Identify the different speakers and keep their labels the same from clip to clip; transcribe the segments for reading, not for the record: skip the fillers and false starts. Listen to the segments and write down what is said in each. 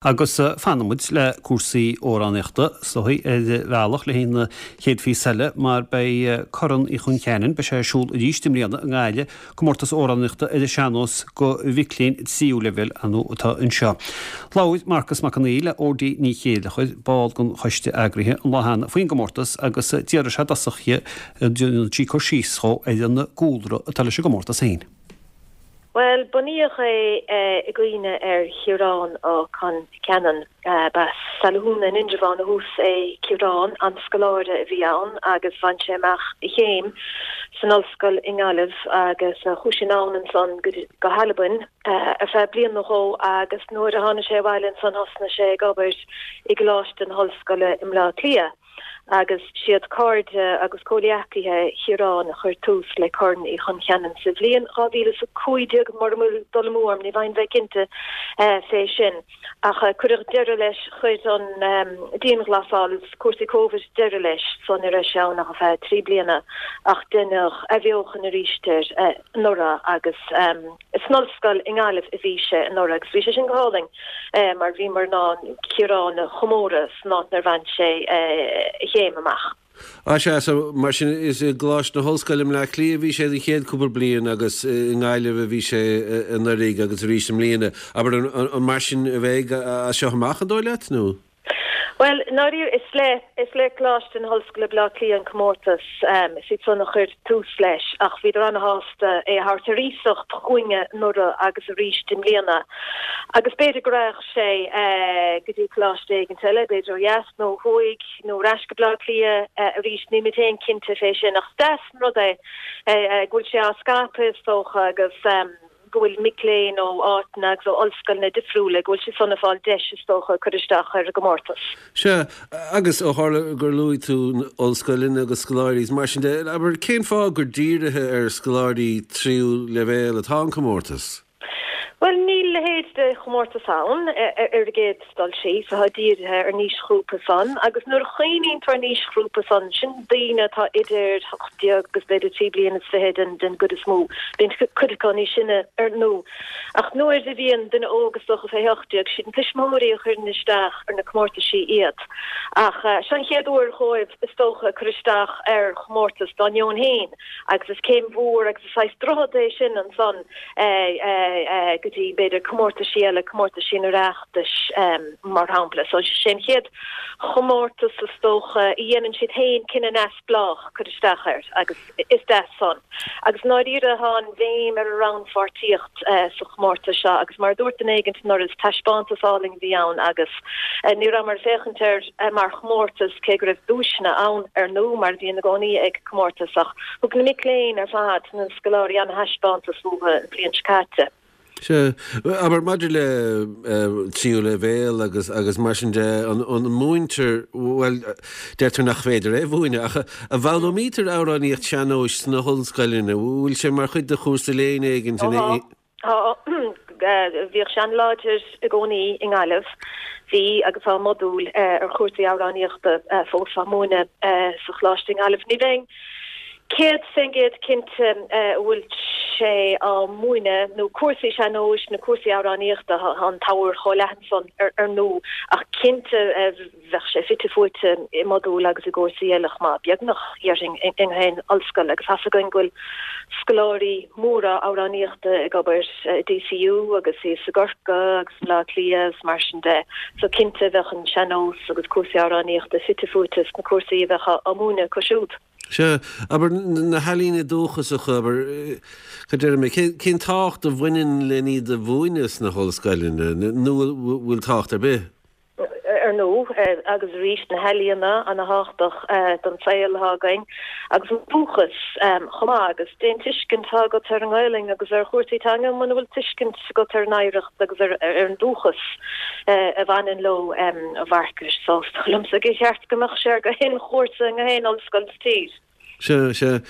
Speaker 1: Agus fanfaidh muid le cúrsaí amhránaíochta, is dóigh, ar bhealach le haghaidh na chéad phíosa eile mar beidh Corn Uí Chon Cheanainn, beidh sé ar siúl arís i mbliana i nGaillimh, comórtas amhránaíochta ar an sean-nós do mhic léinn tríú leibhéal, ar ndóigh, atá anseo. Labhair Marcus Mac Con Aoidh le Ódí Ní Chéilleachair, ball den choiste eagraithe, an lá cheana faoin gcomórtas agus d'fhiafraigh sé i dtosach dhi, an ndéanfadh sí cur síos dhó ar an gcúlra atá leis an gcomórtas féin.
Speaker 2: Bhuel, bunaíodh é i gcuimhne ar Chiarán Ó Con Cheanainn. B'as Salathúna in Indreabhán ó thús é Ciarán, an-scoláire a bhí ann agus bhain sé amach a chéim san ollscoil i nGaillimh agus chuaigh sé anonn ansan go hAlbain ar feadh bliain nó dhó agus nuair a tháinig sé abhaile ansan thosnaigh sé ag obair i gColáiste na hOllscoile i mBleá Cliath. agus siad cairde agus comhghleacaithe Chiaráin a chuir tús le Corn Uí Chon Cheanainn sa bhliain 2015, mura bhfuil dul amú orm, ní bheinn bheith cinnte fé sin. Ach cuireadh deireadh leis, chuir an dianghlasáil is cúrsaí Covid deireadh leis, so ní raibh sé ann ach ar feadh 3 bliana, ach deineadh athbheochan arís air anuraidh agus. San ollscoil i nGaillimh a bhí sé anuraidh agus bhí sé sin go hálainn mar bhíomar in ann Ciarán a chomóradh san áit inar bhain sé a chéim amach.
Speaker 3: Á sea, so mar sin is i gColáiste na hOllscoile i mBleá Cliath a bhí sé don chéad cúpla bliain agus i nGaillimh a bhí sé anuraidh agus arís i mbliana. Abair, an mar sin a bheidh as seo amach, an dóigh leat, nó?
Speaker 2: Bhuel, i ndáiríre, is le, is le Coláiste na hOllscoile Baile Átha Cliath an comórtas, is iad san a chuir tús leis, ach bhíodar ana-shásta é a thabhairt ar iasacht chugainne anuraidh agus arís i mbliana. Agus b'fhéidir go raghadh sé go dtí coláiste éigint eile, b'fhéidir ó dheas nó ó thuaidh nó ar ais go Baile Átha Cliath arís, nílimid féin cinnte fé sin, ach is deas an rud é go bhfuil sé á scaipeadh is dócha agus. go bhfuil mic léinn ó áiteanna agus ó ollscoileanna difriúla, go bhfuil siad san ag fáil deis, is dócha, cur isteach ar an gcomórtas.
Speaker 3: Sea, agus ó tharla gur luaigh tú ollscoileanna agus scoláirí is mar sin de, abair, cén fáth gur dírithe ar scoláirí tríú leibhéal atá an comórtas?
Speaker 2: Bhuel, níl a leithéid de chomórtas ann, ar an gcéad dul síos, atá dírithe ar an aoisghrúpa san, agus nuair a chuimhníonn tú ar an aoisghrúpa san, sin daoine atá idir 18 agus b'fhéidir 23 bliana den den gcuid is mó. Bíonn cuid acu níos sine ar ndú. Ach nuair a bhíonn duine óg is dócha fé 18, siad na tuismitheoirí a chuireann isteach ar na comórtaisí iad. Ach seo an chéad uair dhóibh is dócha cur isteach ar chomórtas dá ndeoin féin agus is céim mhór agus is saghas droichead é sin ansan go dtí b'fhéidir comórtaisí eile, comórtaisí an Oireachtais mar shampla. So sé an chéad chomórtas is dócha a dhéanann siad féin cinneadh neamhspleách cur isteach air agus is deas san. Agus i ndáiríre tá an bhéim ar an rannpháirtíocht sa chomórtas seo agus mar a dúirt duine éigint anuraidh is taispeántas álainn a bhí ann agus ní rabhamar ag féachaint air mar chomórtas cé go raibh duaiseanna ann ar ndú mar a bhíonn i gcónaí ag comórtas ach thug na mic léinn ar fad, na scoláirí an-thaispeántas uathu an bhliain seo caite.
Speaker 3: Sea. Abair, maidir le tríú leibhéal agus agus mar sin de, an múintear, bhuel, deirtear nach féidir é a mhúineadh, ach an bhfoghlaimítear amhránaíocht sean-nóis sna hollscoileanna? Bhfuil sé mar chuid de chúrsa léinn éigin?
Speaker 2: Tá. Tá. Bhíodh sé an-láidir i gcónaí i nGaillimh. Bhí agus tá modúl ar chúrsaí amhránaíochta fós á múineadh sa choláiste i nGaillimh. Ní bheinn 100% cinnte an bhfuil sé á múineadh, nó cúrsaí sean-nóis nó cúrsaí amhránaíochta, tá an t-ábhar chomh leathan san ar ndú, ach cinnte bheadh sé fite fuaite i modúil agus i gcúrsaí eile chomh maith, beagnach, dhéarfainn, i ngach aon ollscoil agus tá's againn go bhfuil scoláirí móra amhránaíochta ag obair i DCU agus thíos i gCorcaigh agus i mBleá Cliath agus mar sin de, so cinnte bheadh an sean-nós agus cúrsaí amhránaíochta fite fuaite sna cúrsaí a bheadh á múineadh acu siúd.
Speaker 3: Sea, abair, na healaíona dúchasacha, abair, cad déarfaidh mé, cén tábhacht a bhaineann len iad a mhúineadh sna hollscoileanna, nó an bhfuil tábhacht ar bith?
Speaker 2: Ar ndóigh, agus arís, na healaíona ana-thábhachtach don saol atá againn, agus an dúchas chomh maith, agus cén tuiscint atá agat ar an nGaelainn agus ar chúrsaí teanga muna bhfuil tuiscint agat ar an oidhreacht agus ar an dúchas a bhaineann leo, a Mharcais. So, is dóigh liomsa gur cheart go mbeadh sé ar gach aon chúrsa i ngach aon ollscoil sa tír.
Speaker 3: Sea, sea.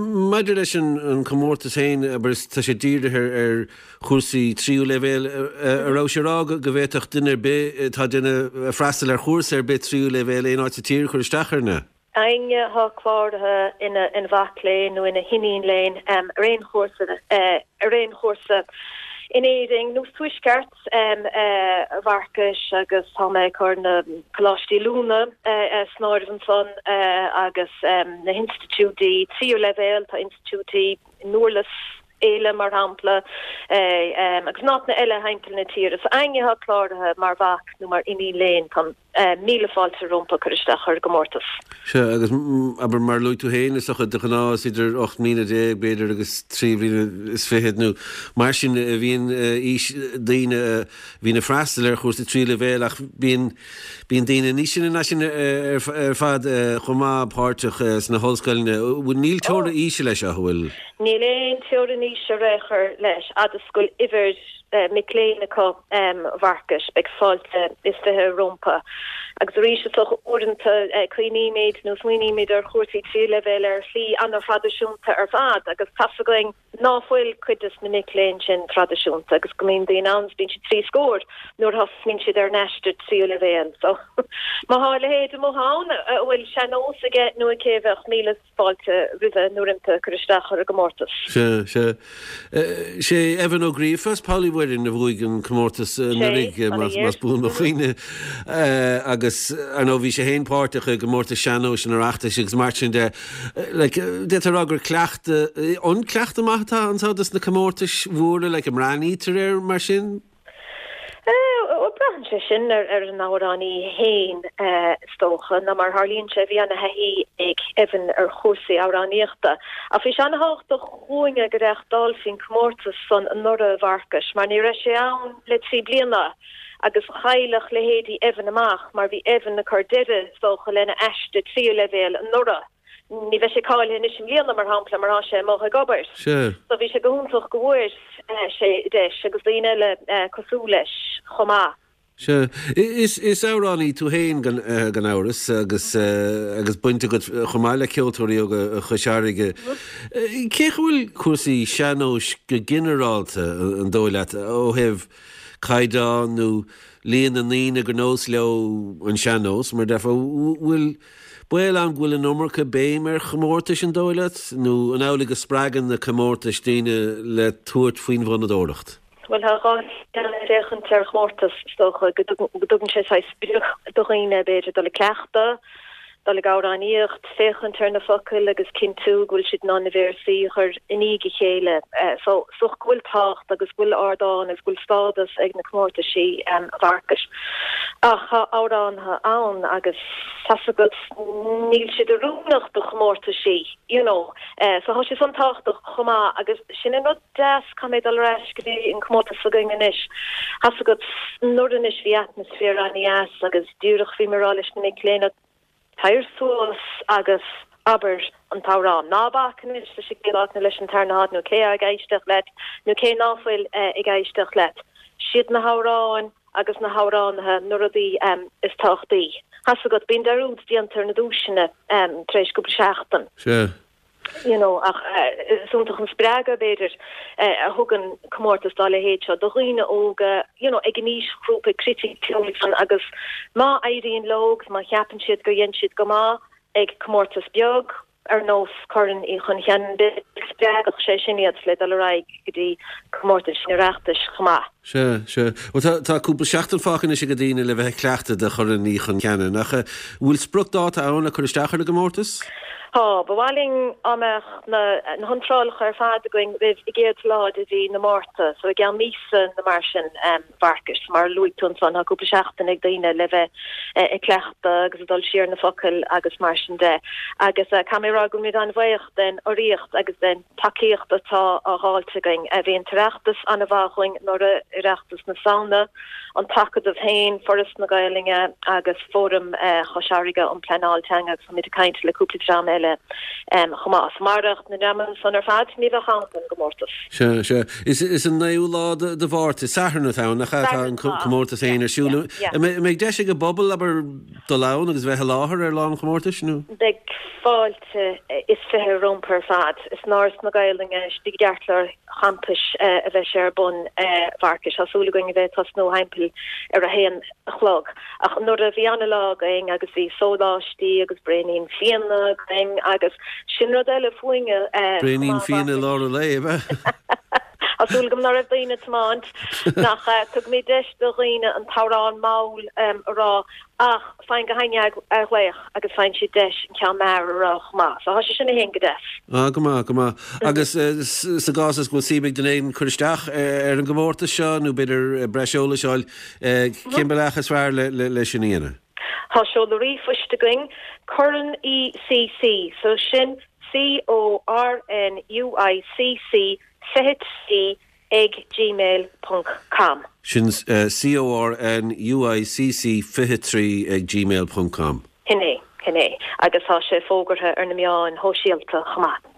Speaker 3: Maidir leis an comórtas féin, abair, tá sé dírithe ar chúrsaí tríú leibhéal. An raibh sé a rá go bhféadfadh duine ar bith atá ag déanamh freastal ar chúrsa ar bith tríú leibhéal aon áit sa tír cur isteach air, nó?
Speaker 2: Éinne atá cláraithe ina mhac léinn nó ina hiníon léinn ar aon chúrsa ar aon chúrsa. In Éirinn nó sa Tuaisceart, a Mharcais, agus tá mé ag cur na coláistí oiliúna san áireamh ansan agus na hinstitiúidí tríú leibhéal, tá institiúidí i nDurlas Éile, mar shampla, agus in áiteanna eile thimpeall na tíre. So éinne atá cláraithe mar mhac nó mar iníon léinn, tá míle fáilte rompu cur isteach ar an gcomórtas.
Speaker 3: Sea, agus abair, mar a luaigh tú féin, is dócha, de ghnáth is idir 18 mbliana, b'fhéidir, agus trí bliana is fichead nó mar sin a bhíonn aois daoine a bhíonn ag freastal ar chúrsa tríú leibhéal ach bíonn, bíonn daoine níos sine ná sin ar fad chomh maith páirteach sna hollscoileanna. Níl teora aoise leis seo, an bhfuil?
Speaker 2: Níl aon teorainn aoise ar aon chor leis, fhad is go bhfuil uimhir mic léinn acu, a Mharcais, beidh fáilte is 20 rompu. Agus arís, is dócha, uaireanta cuimhnímid nó smaoinímid ar chúrsaí tríú leibhéal ar shlí an-thraidisiúnta ar fad agus tá's againn ná fuil cuid des na mic léinn sin traidisiúnta agus go mbíonn daoine ann is bíonn siad trí scór nuair a thosnaíonn siad ar an aistear tríú leibhéal. So, má thá a leithéid amuigh ann a bhfuil sean-nós aige nó aici bheadh míle fáilte roimhe nó roimpi cur isteach ar an gcomórtas.
Speaker 3: Sea, sea. Sé Evan Ó Gríofa as Poll Uí Mhuirinn a bhuaigh an comórtas anuraidh, más buan mo chuimhne. Agus, ar ndóigh, bhí sé féin páirteach i gcomórtas sean-nóis an Oireachtais agus mar sin de. Like, d'fhéadfá a rá gur cleachtadh, an cleachtadh maith atá anseo dos na comórtais mhóra, like, an mbreathnaítear air mar sin?
Speaker 2: Bhuel, braitheann sé sin ar an amhránaí féin, is dócha, nó mar a tharlaíonn sé, bhí ana-thaithí ag Evan ar chúrsaí amhránaíochta. Ach bhí sé ana-thábhachtach dhúinne go reáchtálfaí an comórtas san anuraidh, a Mharcais, mar ní raibh sé ann le trí bliana agus chaillfeadh leithéidí Evan amach mar bhí Evan ag cur deireadh, is dócha, lena aiste tríú leibhéal anuraidh. Ní bheidh sé cáilithe anois i mbliana, mar shampla, mar tá sé amuigh ag obair.
Speaker 3: Sea.
Speaker 2: So bhí sé go hiontach go bhfuair sé deis agus daoine eile cosúil leis chomh maith.
Speaker 3: Sea. Is is amhránaí tú féin gan gan amhras agus agus baint agat chomh maith le Ceoltóirí Óga Chois Fharraige. Cén chaoi a bhfuil cúrsaí sean-nóis go ginearálta, an dóigh leat, ó thaobh caighdeán nó líon na ndaoine gur nós leo an sean-nós, mar a déarfá, bhfuil Baol ann go bhfuil an iomarca béim ar chomórtais, an dóigh leat? Nó an amhlaidh go spreagann na comórtais daoine le tabhairt faoin bhfonnadóireacht?
Speaker 2: Bhuel, tá dhá shlí le féachaint ar chomórtas, is dócha, go dtugann sé saghas sprioc do dhaoine, b'fhéidir, dul ag cleachtadh, dul ag amhránaíocht, féachaint ar na focail agus cinntiú go bhfuil siad in ann na véarsaí a chur i ndiaidh a chéile. So, is dócha go bhfuil tábhacht agus go bhfuil ardán agus go bhfuil stádas ag na comórtaisí, a Mharcais. Ach tá amhránaithe ann agus tá's agat, níl siad oiriúnach do chomórtaisí, you know. So tá sé san tábhachtach chomh maith agus sin an rud deas, caithfidh mé dul ar ais go dtí an comórtas s'againn anois. Tá's agat, anuraidh anois bhí atmaisféar an-dheas agus díreach bhí mé ag rá leis na mic léinn, Tar suas agus abair an t-amhrán. Ná bac anois leis an gcéad áit nó leis an tarna háit nó cé atá ag éisteacht leat nó cé ná fuil ag éisteacht leat. Siad na hamhráin agus na hamhránaithe na rudaí is tábhachtaí. Tá's agat, bíonn dearúd déanta ar na duaiseanna tar éis cúpla seachtain.
Speaker 3: Sea.
Speaker 2: you know ach is iontach an spreagadh b'fhéidir a thugann comórtas dá leithéid seo do dhaoine óga you know ag an aoisghrúpa criticiúil san agus má éiríonn leo agus má cheapann siad gur dhein siad go maith ag comórtas beag ar nós Corn Uí Chon Cheanainn b'fhéidir spreagfadh sé sin iad le dul ar aghaidh go dtí comórtais an Oireachtais chomh maith.
Speaker 3: Sea, sea. Bhuel, tá, tá cúpla seachtain fágtha anois ag daoine le bheith ag cleachtadh do Chorn Uí Chon Cheanainn, ach an bhfuil spriocdháta ann le cur isteach ar an gcomórtas?
Speaker 2: Tá. Ba mhaith linn dá mbeadh na na hiontrálacha ar fad againn roimh an gcéad lá de mhí na Márta, so i gceann míosa nó mar sin, a Mharcais. Mar a luaigh tú ansan, tá cúpla seachtain ag daoine le bheith ag cleachtadh agus ag dul siar na focail agus mar sin de. Agus caithfidh mé a rá go bhfuilimid an-bhuíoch den urraíocht agus den tacaíocht atá á dh'fháilt againn. Bhí an tOireachtas an-mhaith dhúinn anuraidh, Oireachtas na Samhna, an tAcadamh féin, Foras na Gaelainne agus Fóram Chois Fharraige um Pleanáil Teanga agus táimid ag caint le cúpla dream eile chomh maith. Marach na dreamanna san ar fad ní bheadh ann don gcomórtas.
Speaker 3: Sea, sea. Is an naoú lá de Mhárta, Satharn atá ann, nach ea, atá an comórtas féin ar siúl. An mbeidh deis ag an bpobal, abair, dul ann agus bheith i láthair ar lá an chomórtais, nó?
Speaker 2: Beidh fáilte is 20 rompu ar fad. Is in Áras na Gaelainne istigh i gceartlár champais a bheidh sé ar bun, a Mharcais. Tá súil againn a bheith ag tosnú thimpeall ar a haon a chlog. Ach anuraidh bhí ana-lá againn agus bhí sóláistí agus braoinín fíona againn agus sin rud eile fúinne
Speaker 3: chomh
Speaker 2: Braoinín
Speaker 3: maith, fíona i lár an lae, ab ea?
Speaker 2: Tá súil agam ná raibh daoine ag tiomáint nach ea. Tugaimid deis do dhaoine an t-amhrán mall a rá ach faigheann gach éinne athghlaoch agus faigheann siad deis an ceann mear a rá chomh maith. So tá sé sin féin go deas.
Speaker 3: Ah, go maith, go maith. Agus sa gcás is go bhfuil suim ag duine éigin cur isteach ar an gcomórtas seo nó b'fhéidir breis eolais a fháil, cén bealach is fearr le sin a dhéanamh?
Speaker 2: Tá seoladh ríomhphoist againn, Corn UICC, so sin C-O-R-N-U-I-C-C 23 ag gmail ponc com.
Speaker 3: Sin C-O-R-N-U-I-C-C 23 ag gmail ponc com.
Speaker 2: Shin é, shin é. Agus tá sé fógartha ar na meáin shóisialta chomh maith.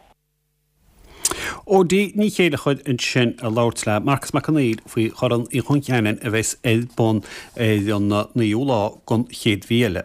Speaker 1: Odí Ní Chéilleachair ansin ag labhairt le Marcas Mac Conghail faoi Chorn Uí Chon Cheanainn a bheas ar bun ar an 9ú lá den chéad mhí eile.